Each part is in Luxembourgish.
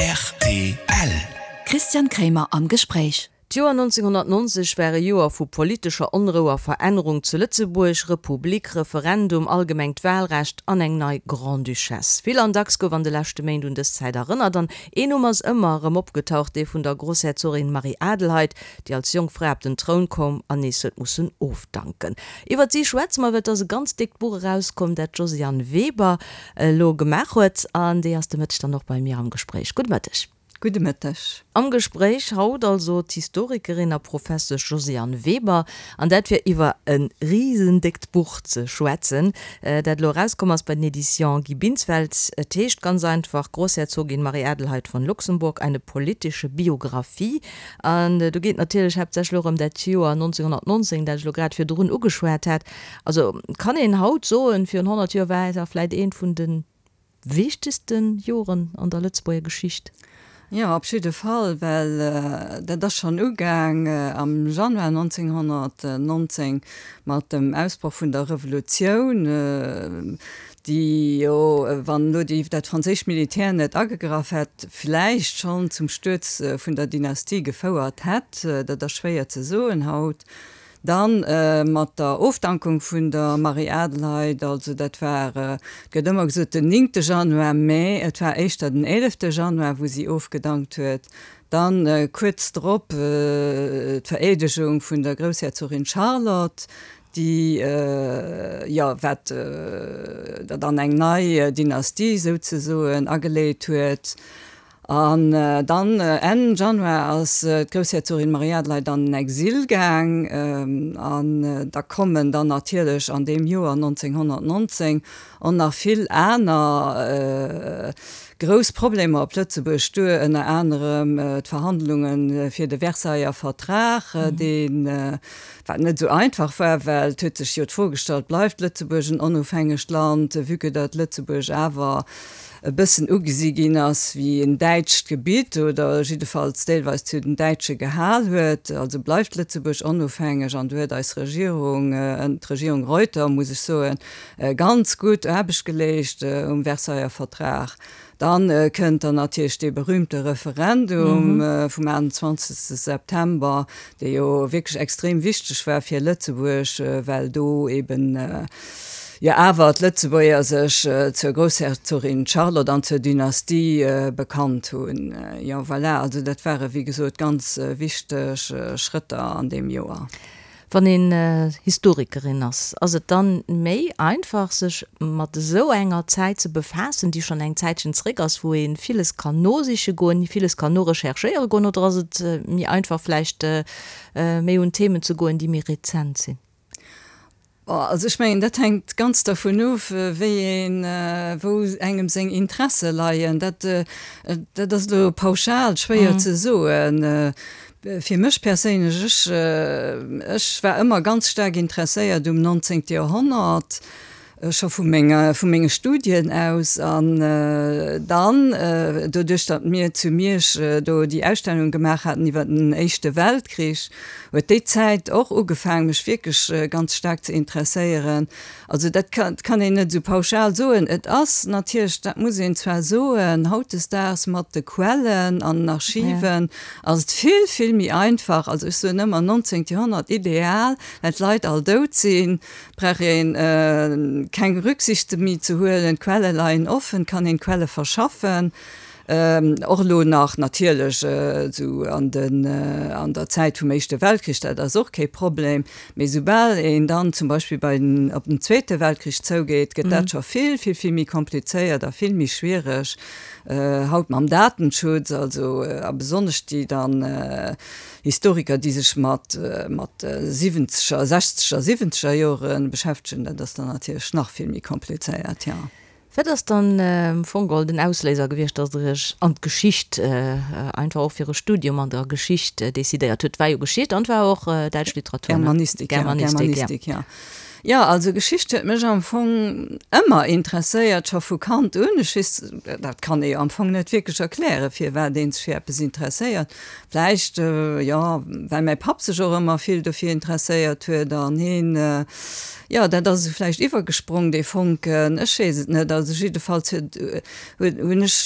Rtl. Christian Kremer am Gespréich. D'Joer 1990 war e Joer vu politescher Onrou a Verännerung zu Lëtzebuerg, Republik, Referendum, allgemengt Wahlrecht an eng nei Grande-Duchesse. Vill an dacks gouf an de leschte Méint un dës Zäit erënnert an een Numm ass ëmmer erëm opgetaucht, dee vun der Grossherzogin Marie-Adelheid, déi als jonk Fra op den Troun koum an nees huet mussen ofdanken. Iwwert si schwätze mer, well et ass e ganz déckt Buch erauskomm, dat d'Josiane Weber elo gemaach huet an déi ass de Mëtteg dann och bei mir am Gespréich. Gudde Mëtteg. Gudde Mëtteg. Am Gespréich haut also d'Historikerin a Professesch Josiane Weber, an dat fir iwwer e risendéckt Buch ze schwätzen, dat elo erauskomm ass bei den Editions Guy Binsfeld. Et heescht ganz einfach Großherzogin Marie-Adelheid von Luxemburg, eine politische Biographie. An do geet et natierlech haaptsächlech och ëm dat Joer 1919, dat ech elo grad virdrun ugeschwat hat. Also kann een haut soen, virun 100 Joer war et vläit eent vun de wichtegste Joren an der Lëtzebuerger Geschicht? Jo, op jidde Fall, well dat ass schonn ugaang am Januar 1919 mat dem Ausbroch vun der Revolutioun. déi jo, wann elo déi dat franséischt Militär net agegraff hätt, vläicht schonn zum Stuerz vun der Dynastie gefouert hätt, dat ass schwéier ze soen haut. Dann mat der Ofdankung vun der Marie-Adelheid, also dat war, et gëtt ëmmer gesot den néngte Januar, mä et war éischter den eelefte Januar, wou si ofgedankt huet. Dann kuerz drop d'Vereedegung vun der Groussherzogin Charlotte, déi, jo, wat der dann eng nei Dynastie souzesoen ageleet huet. An dann Enn Januar ass d'Groussherzogin Marie-Adelheid an den Exil gaang. An da kommen dann natierlech an deem Joer 1919 och nach vill aner grouss Problemer op Lëtzebuerg duer, ënner anerem d'Verhandlunge fir de Versailler Vertrag, deen, Wat net esou einfach war, well et huet sech jo d'Fro gestallt, Bleift Lëtzebuerg en onofhängegt Land, vue que datt Lëtzebuerg awer e bëssen ugesi ginn ass wéi en däitscht Gebitt oder jiddefalls deelweis zu den Däitsche gehal huet. Also bleift Lëtzebuerg onofhängeg? An do huet eis Regierung, d'Regierung Reuter, muss ech soen, ganz gutt Aarbecht geleescht um Versailler Vertrag. Dann kënnt dann natierlech dee berühmte Referendum vum 28 September, dee jo wierklech extrem wichteg war fir Lëtzebuerg, well do eben jo awer d'Lëtzebuerger sech zur Groussherzogin Charlotte an zur Dynastie bekannt hunn. Jo, voilà, also dat ware wéi gesot ganz wichteg Schrëtter an deem Joer. Wann een Historikerin ass, ass et dann méi einfach sech mat esou enger Zäit ze befaassen, déi schonn eng Zäitchen zréck ass, wou ee villes kann nosiche goen, villes kann norecherchéiere goen, oder ass et méi einfach vläicht méi un Themen ze goen, déi méi rezent sinn? Also ech mengen, dat hänkt ganz dervun of, wéi een, wou engem seng Interesse leien. Dat, dat ass elo pauschal schwéier ze soen. Fir mech perséinlech, ech, ech war ëmmer ganz staark interesséiert um 19. Joerhonnert, scho vu menger, vu menge Studien aus. An dann, doduerch datt mir zu Miersch do déi Ausstellung gemaach haten iwwer den Éischte Weltkrich, huet déi Zäit och ugefaang, mech wierklech ganz staark ze interesséieren. Also dat kann een net esou pauschal soen. Et ass natierlech, dat muss een zwar soen, hautdesdaags mat de Quellen an den Archiven ass et vill, vill méi einfach. Also ech soen ëmmer, 19. Joerhonnert ideal, well d'Leit all dout sinn, brauch ee keng Rücksichte méi ze huelen, d'Quelle leien offen, kann een d'Quelle verschaffen. Och elo nach natierlech esou an den, an der Zäit vum Éischte Weltkrich, dat ass och kee Problem, mee soubal een dann zum Beispill bei den, op den Zweete Weltkrich zougeet, gëtt dat scho vill, vill, vill méi komplizéiert a vill méi schwiereg. Haut mam Datenschutz, also a besonnesch déi dann Historiker, déi sech mat, mat siwwenzeger, sechzeger, siwwenzeger Jore beschäftegen, dat ass dann natierlech nach vill méi komplizéiert, jo. Wat ass dann am Fong geholl den Ausléiser gewiescht, dass Der Iech an d'Geschicht, einfach och fir e Studium an der Geschicht decidéiert hutt? Et war jo Geschicht an et war och däitsch Literatur, ne? Germanistik, ja. Germanistik, ja. Jo, also Geschicht huet mech am Fong ëmmer interesséiert, scho vu Kand un. Ech weess, dat kann ee jo am Fong net wierklech erklären, firwat ee sech fir eppes interesséiert. Vläicht, jo, well mäi Papp sech och ëmmer vill dofir interesséiert huet an heen, jo, dat ass esou vläicht iwwergesprong, dee Fonken, ech weess et net. Also jiddefalls huet, huet, hunn ech,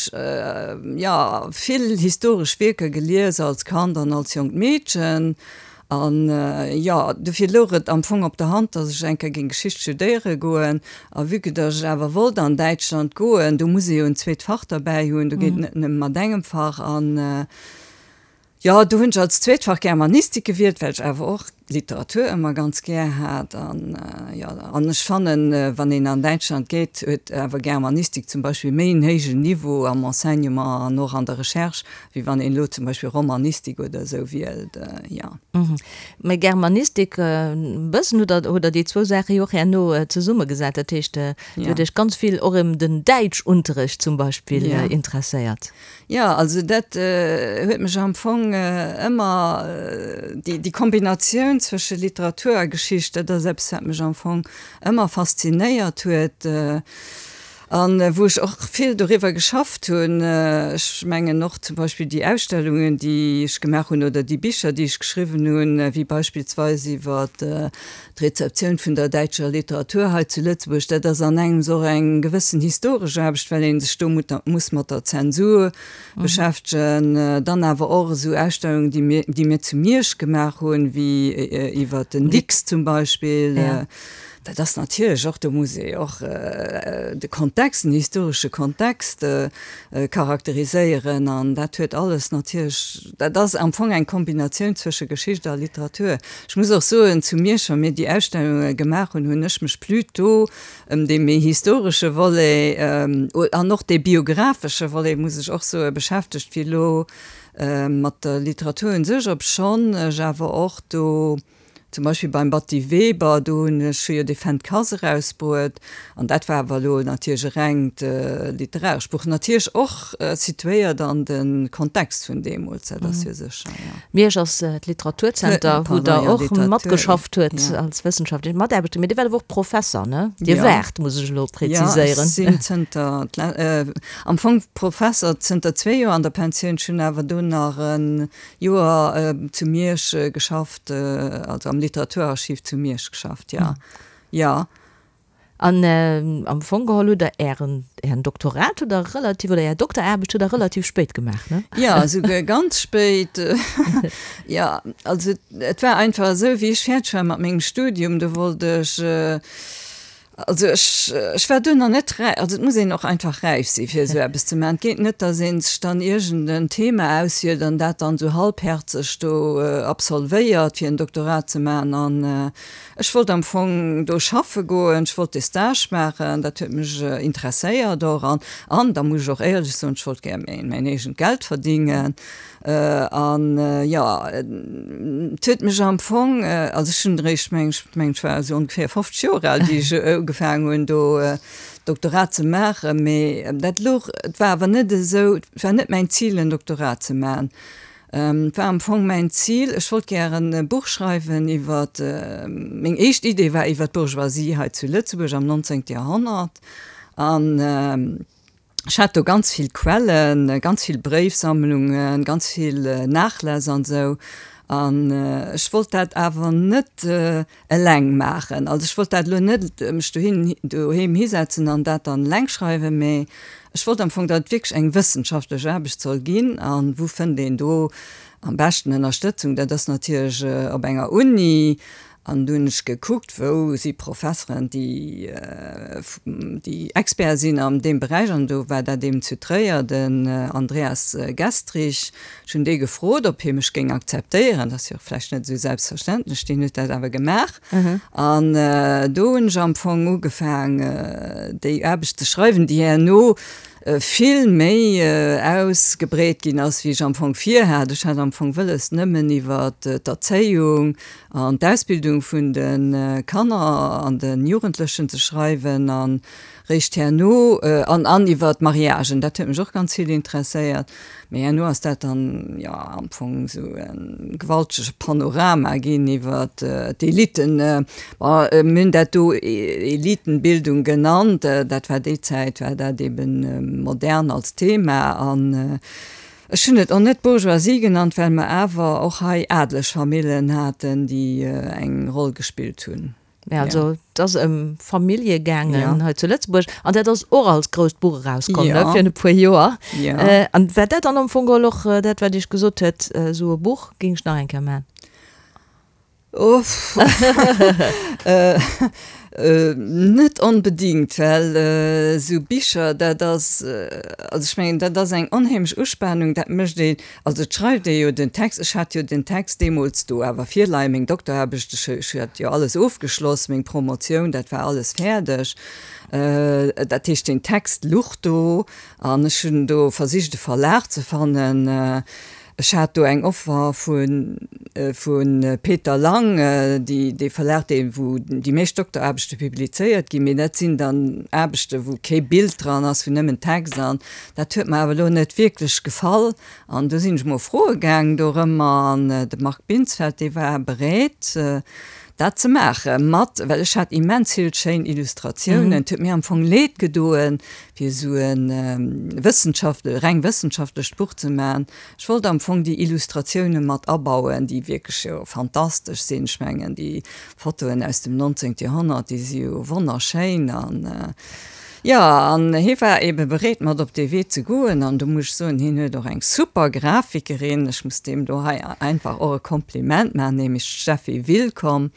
jo, vill historesch Wierker gelies als Kand an als jonkt Meedchen. An, jo, dofir louch et am Fong op der Hand, datt ech eng Kéier géing Geschicht studéiere goen. A vue que datt ech awer wollt an Däitschland goen, do muss ee jo en zweet Fach derbäi hunn, do geet et net nëmme mat engem Fach. An, jo, do hunn ech als zweet Fach Germanistik gewielt, well ech awer och Literatur ëmmer ganz gär hat. An, jo, an ech fannen, wann een an Däitschland geet, huet awer Germanistik zum Beispill méi en héijen Niveau am Enseignement an och an der Recherche Wéi wann een elo zum Beispill Romanistik oder esou wielt, jo. Mä Germanistik, e bëssen hutt Der, hutt Der déi zwou Saache jo och herno zesummegesat. Dat heescht, Dir hutt Iech ganz vill och ëm den Däitschunterrecht zum Beispill interesséiert. Jo, also dat huet mech am Fong ëmmer, déi Kombinatioun zwësche Literatur a Geschicht, dat ass eppes, wat mech am Fong ëmmer faszinéiert huet. An wou ech och vill doriwwer geschafft hunn. Ech mengen och zum Beispill déi Ausstellungen, déi ech gemaach hunn, oder déi Bicher, déi ech geschriwwen hunn, wéi beispillsweis iwwer d'Rezeptioun vun der däitscher Literatur hei zu Lëtzebuerg, dat ass an engems och eng gewëssen historesch Aarbecht, well ee sech do muss mat der Zensur beschäftegen. Dann awer och esou Ausstellungen, déi mir, déi mir zu Miersch gemaach hunn, wéi iwwer den Dicks zum Beispill. Dat ass natierlech och, do muss ee och de Kontext, den historesche Kontext charakteriséieren an dat huet alles natierlech, dat ass am Fong eng Kombinatioun zwësche Geschicht a Literatur. Ech muss och soen, zu Miersch, wa mir déi Ausstellunge gemaach hunn, hunn ech mech plutôt ëm dee méi historesche Volet an och dee biographesche Volet, muss ech och soen, beschäftegt wéi elo mat der Literatur un sech, obschonn ech awer och do, Zum Beispill beim Batty Weber, do hunn ech jo dee Fenn d'Kass erausbruet, an dat war awer elo natierlech e rengt literarescht Buch, natierlech och situéiert an de Kontext vun deemools, dat ass jo sécher, jo. Miersch ass d'Literaturzenter, wou Der och matgeschafft huet als wëssenschaftlech Mataarbechter, mee Dir waart awer och Professer, ne? Dir waart, muss ech elo präziséieren. Jo, ech sinn zënter, am Fong Professer zënter zwee Joer an der Pensioun, ech hunn awer do nach e Joer zu Miersch geschafft, also am Literaturarchiv zu Miersch geschafft, jo. Jo. An am Fong geholl hutt Der Ären, Ären Doktorat hutt Der relativ, oder Är Dokteraarbecht hutt Der relativ spéit gemaach, ne? Jo, esouguer ganz spéit. Jo, also et war einfach esou, wéi ech fäerdeg war mat mengem Studium, do wollt ech, Also ech, ech war duerno net räif, also et muss een och einfach räif si fir esou eppes ze maachen. Et geet net, datt ee sech dann iergend en Thema auswielt an dat dann esou halbherzeg do absolvéiert fir en Doktorat ze maachen. An ech wollt am Fong do schaffe goen, ech wollt dee Stage maachen, dat huet mech interesséiert och. An, an da muss ech och éierlech soen, ech wollt gär mäin eegent Geld verdingen. An jo, et huet mech am Fong, also ech hunn eréischt, meng ech, meng ech war esou ongeféier 50 Joer al, wéi ech ugefaangen hunn do Doktorat ze maachen, mee dat louch, et war awer net esou, et war net mäin Zil en Doktorat ze maachen. Et war am Fong mäin Zil, ech wollt gären e Buch schreiwen iwwer, meng éischt Idee war iwwer d'Bourgeoisie hei zu Lëtzebuerg am 19. Joerhonnert an, Ech hat do ganz vill Quellen, ganz vill Bréifsammlungen, ganz vill Nachläss an esou. An ech wollt dat awer net eleng maachen. Also ech wollt dat elo net mech dohin, doheem hisetzen an dat dann eleng schreiwen, mee ech wollt am Fong, datt et wierklech eng wëssenschaftlech Aarbecht soll ginn. A wou fënnt een do am beschten Ënnerstëtzung? Dat ass natierlech op enger Uni. An du hunn ech gekuckt, wou si Professeren, déi, déi Experte sinn an deem Beräich. An do war dat eben zu Tréier den Andreas Gestrich. Ech hunn dee gefrot, ob hie mech géing akzeptéieren. Dat ass jo och vläicht net esou selbstverständlech. Deen huet dat awer gemaach. An do hunn ech am Fong ugefaang, déi Aarbecht ze schreiwen, déi herno vill méi ausgebreet ginn ass, wéi ech am Fong virhat. Ech hat am Fong wëlles, nëmmen iwwer d'Erzéiung an d'Ausbildung vun de Kanner an de Jugendlechen ze schreiwen. A. Réischt herno, an an iwwer d'Mariagen, dat huet mech och ganz vill interesséiert, mee herno ass dat dann, jo, am Fong esou e gewaltege Panorama ginn iwwer d'Eliten. Bon, mir hunn dat do Elitenbildung genannt, dat war déi Zäit, war dat eben modern als Thema. An ech hunn et och net Bourgeoisie genannt, well mer awer och hei adeleg Famillen haten, déi eng Roll gespillt hunn. Mä also et ass ëm Famillje gaangen hei zu Lëtzebuerg an dat ass och als grousst Buch erauskomm, ne, virun e puer Joer. An war dat dann am Fong geholl och dat, wat Iech gesot huet, esou e Buch géing ech nach eng Kéier maachen? Uff. Net onbedingt, well esou Bicher, dat ass, also ech mengen, dat ass eng onheemlech Uspanung, dat mécht een, Also et schreift ee jo den Text, ech hat jo den Text deemools do awer virleien, meng Dokteraarbecht, ech ech hat jo alles ofgeschloss, meng Promotioun, dat war alles fäerdeg. Dat heescht den Text luch do an ech hunn do versicht e Verlag ze fannen. Ech hat do eng Offer vu vu Peter Lang, déi dee Verlag dee wou déi meescht Dokteraarbechte publizéiert ginn, mee dat sinn dann Aarbechte wou kee Bild dran ass, wou nëmmen Text an Dat huet mer awer elo net wierklech gefall an du sinn ech mol froe gaang dorëmmer an de Marc Binsfeld, dee war bereet dat ze maache mat, well ech hat immens vill schéin Illustratiounen. Et huet mir am Fong leed gedoen, fir esou e wëssenschaftle reng wëssenschaftlecht Buch ze maachen. Ech wollt am Fong déi Illustratioune mat abauen, déi wierklech jo fantastesch sinn. Ech mengen déi Fotoen aus dem 19. Joerhonnert, déi si jo wonnerschéin an. Jo, an hie war ebe bereet mat op dee Wee ze goen an do muss ech soen, hien huet och eng super Grafikerin, ech muss deem do hei einfach och e Kompliment maachen, nämlech d'Steffi Willkomm.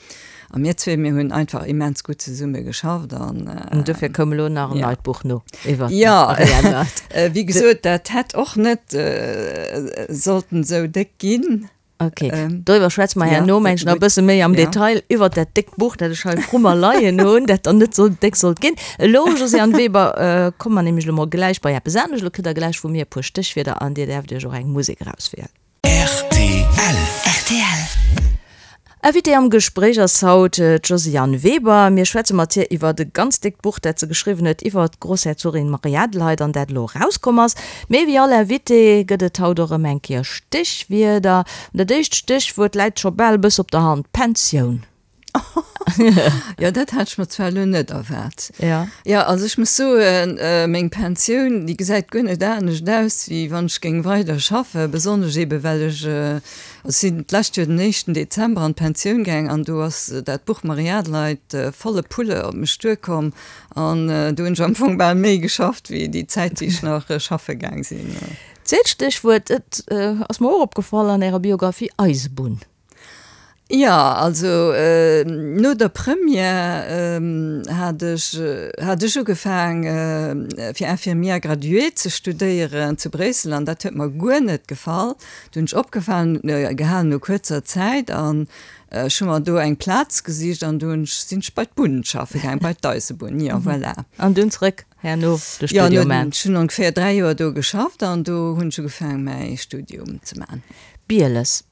A mir zwee, mir hunn einfach immens gutt zesumme geschafft an. An dofir koum elo nach en neit Buch no iwwer d'Marie Adelheid. Jo, wéi gesot, dat hätt och net sollten esou déck ginn. Ok, doriwwer schwätze mer herno, meng ech, nach e bësse méi am Detail, iwwert dat déckt Buch, dat ech hei vru mer leien hunn, dat dann net sou déck sollt ginn. Elo, Josiane Weber, komme mer nämlech elo mol gläich bei eppes anescht. Elo kritt Der gläich vu mir e puer Stéchwierder an Dir däerft Iech och eng Musek erauswielen. Rtl. Rtl. Invitée am Gespréich ass haut d'Josiane Weber. Mir schwätze mat hir iwwert e ganz déckt Buch, dat se geschriwwen huet iwwert d'Grossherzogin Marie-Adelheid an dat elo erauskomm ass. Mee wéi all Invité gëtt et haut och erëm eng Kéier Stéchwierder. An dat éischt Stéchwuert läit scho bal e bësse op der Hand, Pensioun. Jo, dat hat ech mer zwar elo net erwaart. Ja. Jo, also ech muss soen, meng Pensioun, déi gesäit guer net anescht aus, wéi wann ech géing weider schaffen, besonnesch eebe well ech, also ech sinn d'lescht Joer den éischten Dezember an d'Pensioun gaang an do ass dat Buch Marie-Adelheid volle Pulle op mech duerkomm an do hunn ech am Fong bal méi geschafft wéi déi Zäit, déi ech nach schaffe gaang sinn. Zweet Stéchwuert, et ass mer och opgefall an Ärer Biographie, Eisebunn. Jo, also no der Première hat ech hat ech ugefaang fir Infirmière graduée ze studéieren zu Bréissel an dat huet mer guer net gefall. Du hunn ech opgefalen gehalen no kuerzer Zäit an ech hu mer do eng Plaz gesicht an du hunn ech sinn ech bei d'Bunn schaffe gaang, bei d'Eisebunn, jo voilà. An dunn zrëck herno de Studium man. Jo, ech hunn ongeféier 3 Joer do geschafft an do hunn ech ugefaang mäi Studium ze man. Bieles.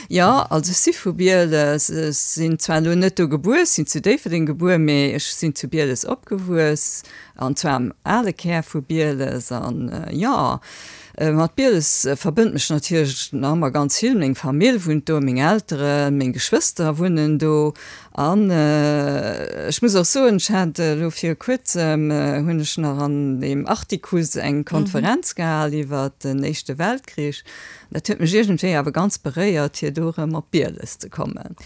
Jo, also ech si vu Bieles. Ech sinn zwar elo net do gebuer, ech sinn zu Déifferdeng gebuer, mee ech sinn zu Bieles opgewuess, an zwar am ale Kär vu Bieles. An jo, mat Bieles verbënnt mech natierlech nach ëmmer ganz vill. Meng Famill wunnt do, meng Elteren, meng Geschwëster wunnen do. An ech muss och soen, ech hat elo viru kuerzem, hunn ech nach an deem Artikuss eng Konferenz gehal iwwert den Éischte Weltkrich. Dat huet mech iergendwéi awer ganz beréiert, fir do erëm op Bieles ze kommen.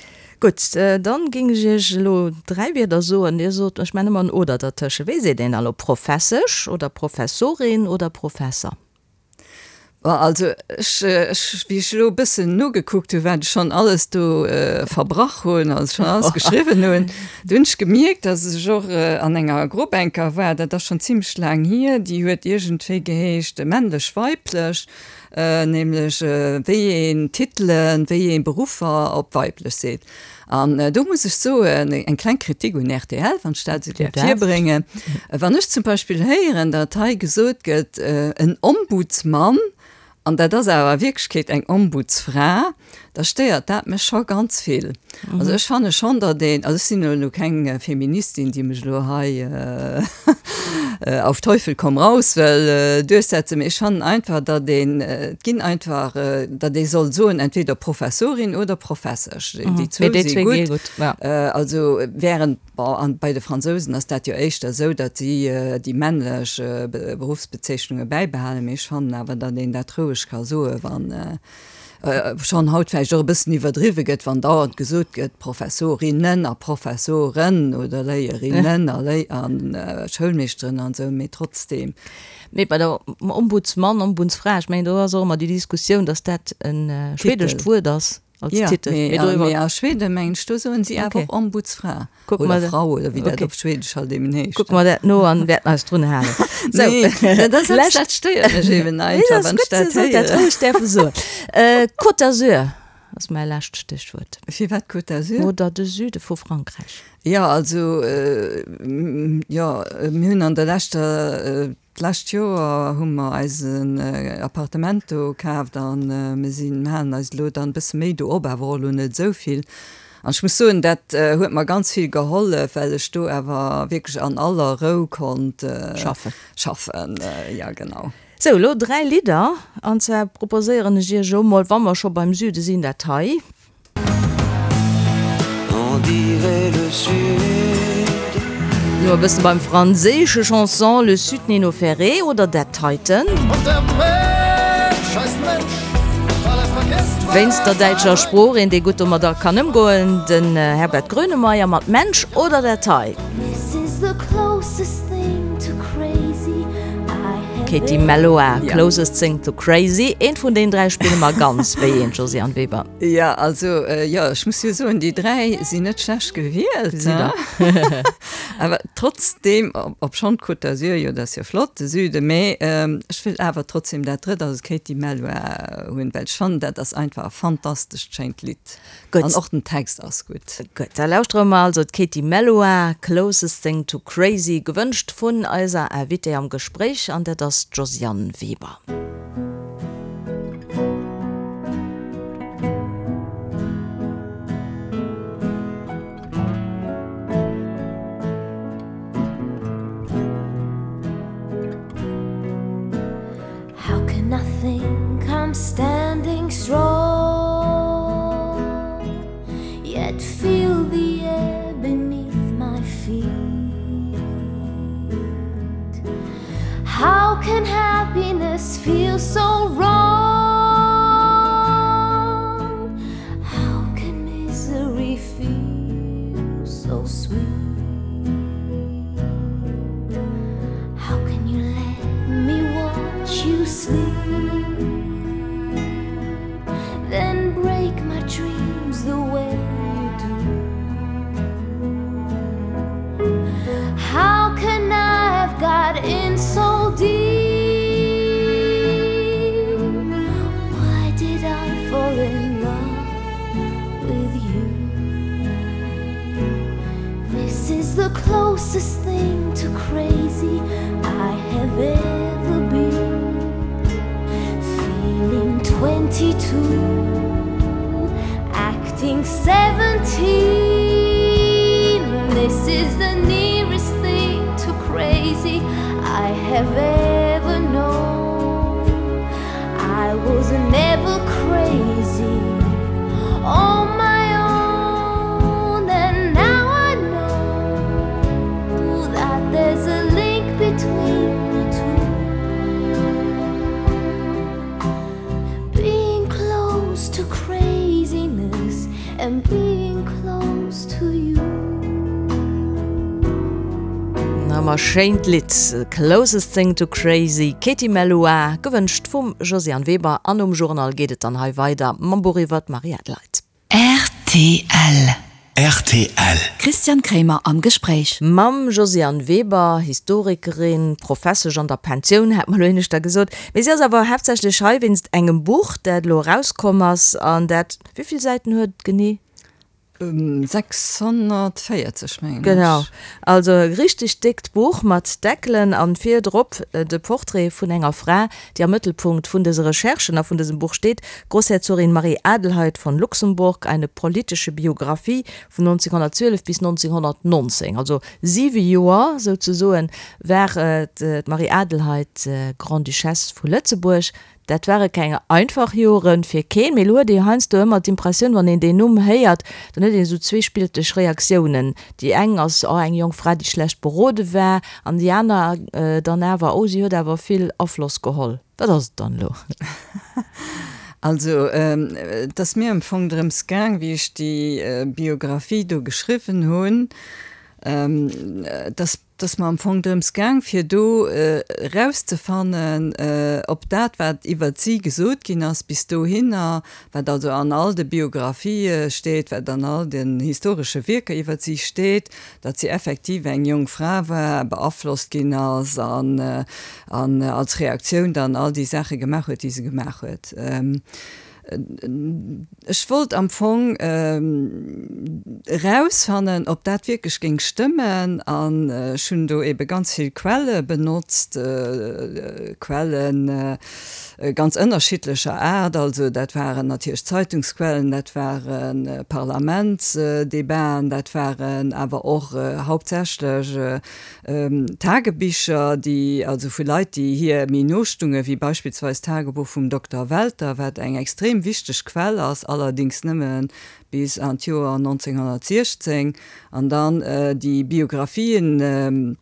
Gutt, dann géing ech Iech elo 3 Wierder soen. Dir sot, ech maachen ëmmer en oder dertësche. Wéi seet een da elo, Professesch oder Professorin oder Professer? Bon, also ech, ech, wéi ech elo e bëssen nogekuckt hunn, wat ech schonn alles do verbrach hunn, also schonn alles geschriwwen hunn, do hunn ech gemierkt, datt ech och an enger Grupp eng Kéier war, dat ass schonn zimlech laang hier, déi huet iergendwéi geheescht männlech-weiblech. Nämlech wéi een Titelen, wéi ee Beruffer op weiblech seet. An do muss ech soen, eng kleng Kritik un rtl, wann ech dat esou däerf virbréngen, Wann ech zum Beispill héieren, datt hei gesot gëtt, en Ombudsmann, an dat ass awer a Wierklechkeet eng Ombudsfra, Da stéiert dat mech scho ganz vill. Also ech fanne schonn, datt een, also ech sinn elo keng Feministin, déi mech elo hei auf Teufel komm raus wëll duerchsetzen, mee ech fannen einfach, datt een, et ginn einfach, datt ee soll soen, entweder Professorin oder Professesch, déi zwou si gutt. Also während, bon, an bei de Fransousen ass dat jo éischter esou, datt si déi männlech Beruffsbezeechnunge bäibehalen, mee ech fannen awer, datt een dat roueg ka soen, wann, schonn haut vläicht och e bëssen iwwerdriwwe gëtt, wann dauernd gesot gëtt, Professorinnen a Professoren oder Léierinnen a Léi a Schoulmeeschteren an esou, mee trotzdeem. Mee bei der Ombudsmann, Ombudsfra, ech mengen do ass och ëmmer déi Diskussioun, datt dat e schwedescht Wuert ass als Titel. Jo, mee a Schweden, mengen ech, do soen si awer och Ombudsfra. Kucke mer. Oder Frau, oder wéi dat op Schwedesch halt eben heescht. Kucke mer dat no an wäerten eis drun halen. Sou. Nee, dat ass eppes, dat stéiert mech eben einfach, wann ech dat héieren. Dat roueg däerfe soen. Côte d'Azur ass mäi lescht Stéchwuert. Firwat Côte d'Azur? Oder de Süde vu Frankräich. Jo, also, jo, mir hunn an der leschter D'lescht Joer hu mer eisen Appartement do kaaft a mir sinn, mir halen eis elo dann e bësse méi do op, awer och elo net esou vill. An ech muss soen, dat huet mer ganz vill gehollef, well ech do awer wierklech an aller Rou konnt schaffen. Schaffen, jo genau. Sou, elo 3 Lidder, an zwar proposéieren ech iech elo mol, wa mer scho beim Süde sinn, dat hei. No e bësse beim franséische Chanson Le Sud Nino Ferrer oder dat heiten. Wéinst der däitscher Sprooch, een dee gutt domadder kann ëmgoen, den Herbert Grönemeyer mat Mensch oder dat hei. Katie Melua, Closest Thing to Crazy. Eent vun deenen 3 spille mer ganz. Wéi eent, Josiane Weber? Jo, also, jo, ech muss jo soen, déi 3 sinn net schlecht gewielt, Gesitt Der. Awer trotzdeem, obschonn d'Côte d'Azur, jo, dat ass jo flott, de Süden, mee ech wëll awer trotzdeem dat drëtt, also d'Katie Melua hunn, well ech fannen, dat ass einfach e fantastescht schéint Lidd. Gutt. An och den Text ass gutt. Gutt, da lauschtere mer also d'Katie Melua, Closest Thing to Crazy, gewënscht vun eiser Invitée am Gespréich, an dat ass d'Josiane Weber. How can I think I'm standing strong Yet feel the air beneath my feet How can happiness feel so wrong How can misery feel so sweet How can you let me watch you sleep Then break my dreams the way you do How can I have got in so deep Why did I fall in love with you This is the closest thing to crazy I have ever been Feeling 22 acting 17 This is the nearest thing to crazy I have ever known I was never crazy on my own and now I know that there's a link between the two Being close to craziness and being close to you. Na ma schéint Lidd, Closest Thing to Crazy, Katie Melua, gewënscht vum Josiane Weber. An nom Journal geet et dann hei weider mam Buch iwwer d'Marie Adelheid. Rtl. Rtl. Christian Kremer am Gespréich. Mam Josiane Weber, Historikerin, Professesch an der Pensioun, hat mer elo éineschter gesot. Mee si ass awer haaptsächlech hei wéinst engem Buch, dat elo erauskomm ass an dat, wéi vill Säiten huet et genee? 640 mengen ech. Genau, also e richteg déckt Buch mat Deckelen an virdrop de Portrait vun enger Fra, déi am Mëttelpunkt vun dëse Recherchen a vun dësem Buch steet, Grossherzogin Marie-Adelheid von Luxemburg, eine politische Biographie vun 1912 bis 1919. Also siwe Joer souzesoen war d'Marie-Adelheid Grande-Duchesse vu Lëtzebuerg. Dat ware keng einfach Jore fir keen, mee elo huet ee jo heiansdo ëmmer d'Impressioun, wann een deen Numm héiert, dann huet een esou zweespilteg Reaktiounen. Déi eng ass, oh eng jonk Fra, déi schlecht berode war, an déi aner dann awer, oh si huet awer vill Afloss geholl. Wat ass et dann elo? Also et ass mir am Fong drëms gaang, wéi ech déi Biographie do geschriwwen hunn, dass Et ass mer am Fong drëms gaang, fir do erauszefannen, ob dat, wat iwwert si gesot ginn ass bis dohinner, wat also an all de Biographië steet, wat an all den historesche Wierker iwwert si steet, datt si effektiv eng jonk Fra war, beaflosst ginn ass an als Reaktioun dann all déi Saache gemaach huet, déi se gemaach huet. Ech wollt am Fong erausfannen, ob dat wierklech géing stëmmen an ech hunn do ebe ganz vill Quelle benotzt, Quelle ganz ënnerschiddlecher Aart. Also dat waren natierlech Zeitungsquellen, dat ware Parlamentsdebaten, dat waren awer och hauptsächlech Tagebicher, déi also vu Leit, déi hir méi no stungen, wéi beispillsweis d'Tagebuch vum Dokter Welter, wat eng extrem wichteg Quell ass, allerdings nëmme bis an d'Joer 1916, an dann déi Biographien,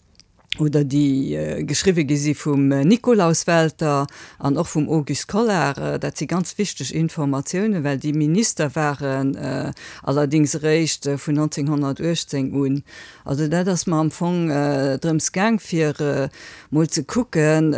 oder déi geschriwwe gi si vum Nikolaus Welter an och vum Auguste Collart. Dat si ganz wichteg Informatiounen, well déi Minister waren allerdings eréischt vun 1918 un. Also dat ass mer am Fong drëms gaang, fir mol ze kucken,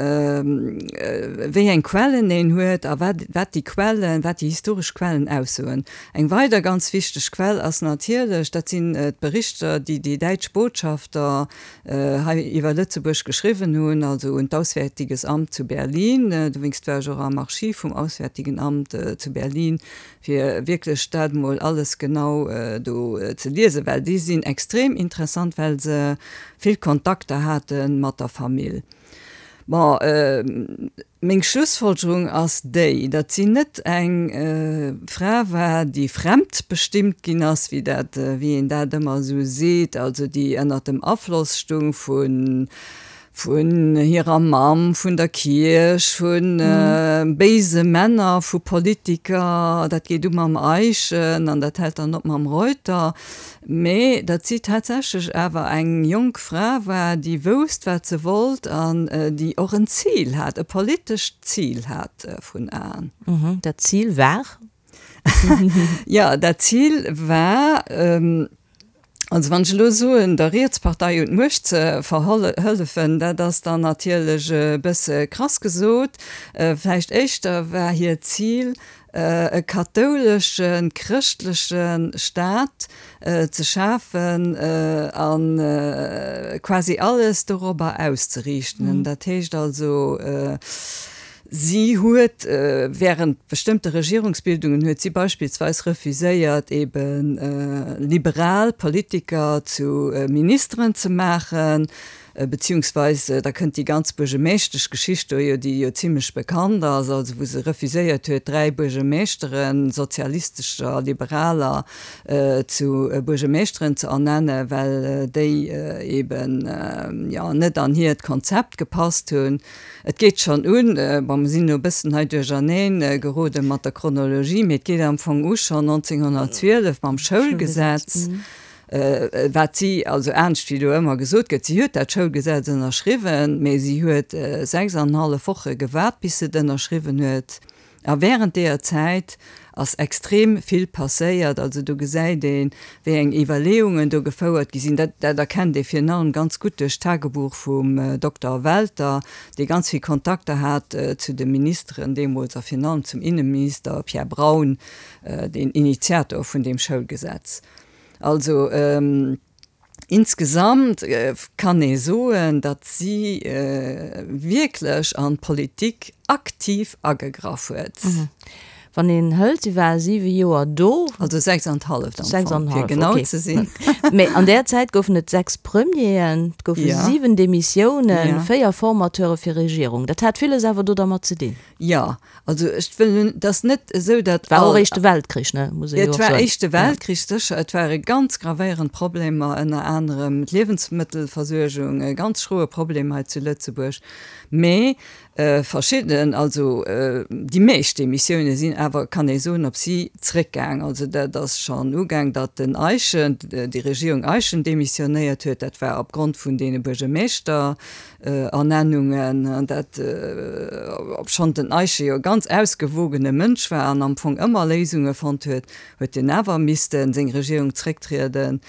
wéi eng Quellen een huet a wat wat déi Quellen, wat déi historesch Quellen aussoen. Eng weider ganz wichteg Quell ass natierlech, dat sinn d'Berichter, déi déi däitsch Botschafter hei iwwer Lëtzebuerg geschriwwen hunn, also un d'Auswärtiges Amt zu Berlin. Dowéinst war ech och am Archiv vum Auswärtigen Amt zu Berlin, fir wierklech dat emol alles genau do ze liesen, well déi sinn extrem interessant, well se vill Kontakter hate mat der Famill. Bon, meng Schlussfolgerung ass déi, datt si net eng Fra war, déi fremdbestimmt ginn ass, wéi dat, wéi een dat ëmmer esou seet, also déi ënnert dem Afloss stung vu vun hirer Mamm, vun der Kierch, vu béise Männer, vu Politiker, dat geet u mam Eyschen an dat hält dann op mam Reuter, mee datt si tatsächlech awer eng jonk Fra war, déi wousst, wat se wollt an déi och en Zil hat, e politescht Zil hat vrun Aen. Dat Zil war? Jo, dat Zil war, Also wann ech elo soen, der Rietspartei un d'Muecht ze verhëllefen, dat ass dann natierlech e bësse krass gesot. Vläicht éischter war hiert Zil, e kathouleschen, chrëschtleche Staat ze schafen a quasi alles dorobber auszeriichten. Dat heescht also, Si huet während bestëmmte Regierungsbildungen huet si beispillsweis refuséiert ebe liberal Politiker zu Ministeren ze maachen, beziehungsweis da kënnt déi ganz Buergemeeschteschgeschicht do jo, déi jo zimlech bekannt ass, also wou se refuséiert huet 3 Buergemeeschteren, sozialistescher, liberaler, zu Buergemeeschteren ze ernennen, well déi eben jo net an hiert Konzept gepasst hunn. Et geet schonn un, bon, mer sinn elo e bëssen hei duercherneen gerode mat der Chronologie, mee et geet am Fong u schonn 1912 mam Schoulgesetz, wat si, also anescht wéi do ëmmer gesot gëtt, si huet dat Schoulgesetz ënnerschriwwen, mee si huet 6 an en hallef Woche gewaart, bis se et ënnerschriwwen huet. A während deeër Zäit ass extrem vill passéiert. Also do gesäit een, wéi eng Iwwerleeungen do gefouert gi sinn. Dat, dat erkennt ee virun allem ganz gutt duerch d'Tagebuch vum Dokter Welter, dee ganz vill Kontakter hat zu de Ministeren deemools a virun allem zum Inneminister Pierre Braun, deen Initiator vun deem Schoulgesetz. Also. Insgesamt kann ee soen, datt si wierklech an d'Politik aktiv agegraff huet. Wann een hëlt, si war siwe Joer do. Also 6 an d'halleft am Fong, fir genau ze sinn. Mee an där Zäit goufen et 6 Premieren, et goufe 7 Demissiounen, 4 Formateure fir Regierung. Dat hat villes awer do dermat ze dinn. Jo, also ech wëll, et ass net esou, datt. War och Éischte Weltkrich, ne, muss ee jo och soen. Et war Éischte Weltkrich, sécher. Et ware ganz gravéierend Problemer, ënner anerem d'Liewensmëttelversuergung, e ganz schroe Problem hei zu Lëtzebuerg. Mee Verschidden, also déi meescht Demissioune sinn awer, kann ee soen, op si zréckgaang. Also dat ass schonn ugaang, datt den Eyschen, déi Regierung Eyschen demissionéiert huet. Dat war opgrond vun deene Buergermeeschterernennungen. Dat, obschonn den Eyschen jo e ganz ausgewogene Mënsch war an am Fong ëmmer Léisunge fonnt huet, huet en awer misste seng Regierung zrécktrieden.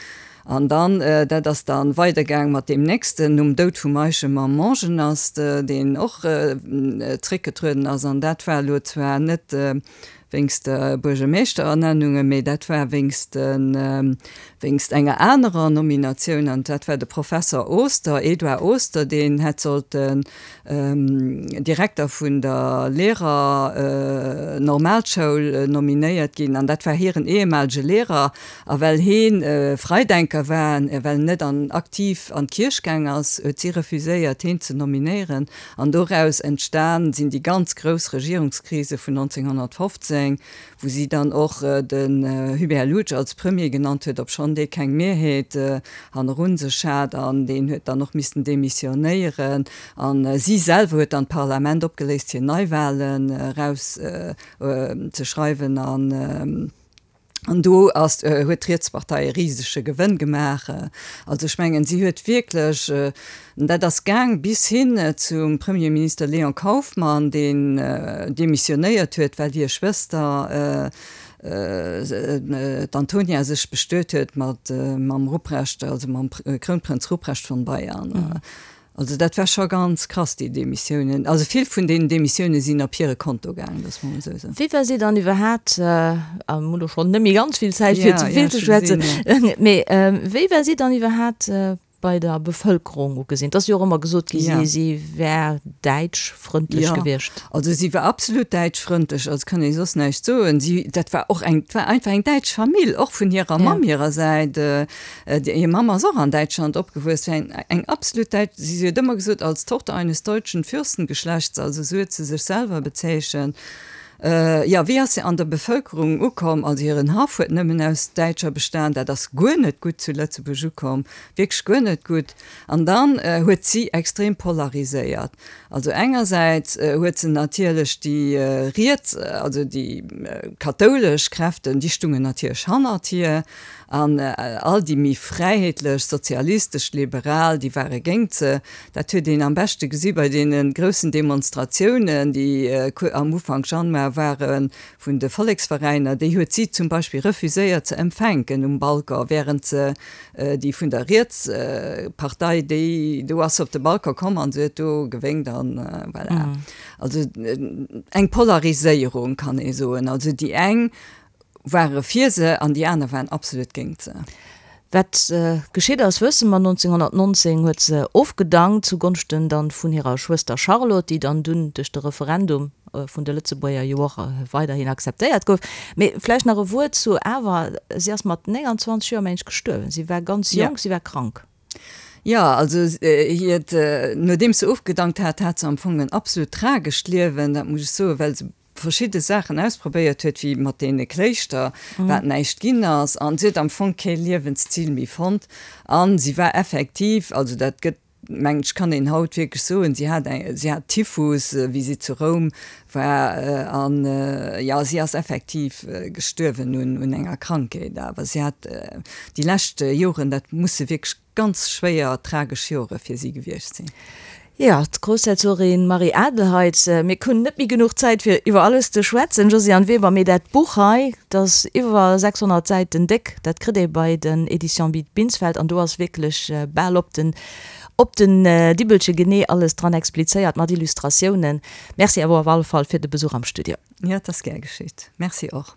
An dann, dat ass da weidergaang mat deem nächsten, nom Doud vum Eischen, mam Mongenast, deen och zréckgetrueden ass. An dat war elo zwar net wéinst der Buergermeeschterernennunge, mee dat war wéinst de, wéinst enger anerer Nominatioun. An dat war de Professer Oster, Edouard Oster, deen hätt sollten Direkter vun der Lehrer-Normalschoul nominéiert ginn. An dat war hiren ehemalege Lehrer. A well heen Freidenker war, a well en net an aktiv an d'Kierch gaang ass, huet si refuséiert heen ze nominéieren. An doraus entstan sinn déi ganz grouss Regierungskrise vun 1915, wou si dann och den Hubert Loutsch als Premier genannt huet, obschonn dee keng Mehrheet hannerun sech hat, an deen huet dann och missten demissionéieren. A si selwer huet dann d'Parlament opgeléist fir Neiwahlen eraus ze schreiwen. An An do ass, huet d'Rietspartei e risege Gewënn gemaach. Also ech mengen, si huet wierklech, an dat ass gaang bis hin zum Premierminister Léon Kauffmann, deen demissionéiert huet, well hir Schwëster, d'Antonia, sech bestuet huet mat mam Ruprecht, also mam Krounprënz Ruprecht von Bayern. Also dat war scho ganz krass, déi Demissiounen. Also vill vun deenen Demissioune sinn op hire Konto gaangen, dass mer emol esou soen. Wéi war si dann iwwerhaapt, a mir hunn elo schonn net méi ganz vill Zäit fir ze vill ze schwätzen, mee wéi war si dann iwwerhaapt bei der Bevëlkerung ugesinn? Et ass jo och ëmmer gesot gi si si wär däitschfrëndlech gewiescht. Jo, also si war absolut däitschfrëndlech, also kann ee soss näischt soen. Si, dat war och eng, et war einfach eng däitsch Famill, och vun hirer Mamm hirer Säit. Hir Mamm ass och an Däitschland opgewuess, war eng eng absolut däitsch, si huet ëmmer gesot, als Tochter eines deutschen Fürstengeschlechts, also esou huet se sech selwer bezeechent. Jo, wéi ass se an der Bevëlkerung ukomm? Also hiren Haff huet nëmmen aus Däitscher bestan, dat ass guer net gutt zu Lëtzebuerg ukomm, wierklech guer net gutt. An dann huet si extrem polariséiert. Also engersäits huet se natierlech déi riets, also déi kathoulesch Kräften, déi stungen natierlech hannert hir, An all déi méi fräiheetlech, sozialistesch, liberal, déi ware géint se. Dat huet een am beschte gesi bei deene groussen Demonstratiounen, déi am Ufank Januar ware vun de Volleksveräiner. Déi huet si zum Beispill refuséiert ze empfänken um Balcon, während se déi vun der Rietspartei, déi, do ass se op de Balcon komm an se huet do gewénkt an voilà. Also eng Polariséierung kann ee soen. Also déi eng ware fir se an déi aner waren absolut géingt se. Wat geschitt ass, wësse mer, 1919 huet se ofgedankt, zu Gonschten dann vun hirer Schwëster Charlotte, déi dann dunn duerch de Referendum vun de Lëtzebuerger jo och weiderhin akzeptéiert gouf. Mee vläicht nach e Wuert zu awer, si ass mat 29 Joer, mengen ech, gestuerwen. Si war ganz jonk, si war krank. Jo, also hiert, nodeems se ofgedankt hat, hat se am Fong en absolut tragescht Liewen, dat muss ech soen, well se verschidde Saachen ausprobéiert huet, wéi mat deene Kléischter, wat näischt ginn ass, an si huet am Fong kee Liewenszil méi fonnt an si war effektiv, also dat gëtt, mengen ech, kann een haut wierklech soen, si hat eng, si hat Typhus, wéi si zu Roum war an, jo, si ass effektiv gestuerwen un, un enger Krankheet, awer si hat déi lescht Joren, dat musse wierklech Ganz schwéier, tragesch Jore fir si gewiescht sinn. Jo, d'Groussherzogin Marie-Adelheid, mir hunn net méi genuch Zäit fir iwwer alles ze schwätzen, Josiane Weber, mee dat Buch hei, dat ass iwwer 600 Säiten déck, dat kritt ee bei den Editions Binsfeld an do ass wierklech bal op den op den Dibbelche genee alles dran explizéiert mat Illustratiounen. Merci awer op alle Fall fir de Besuch am Studio. Jo, et ass gär geschitt. Merci och.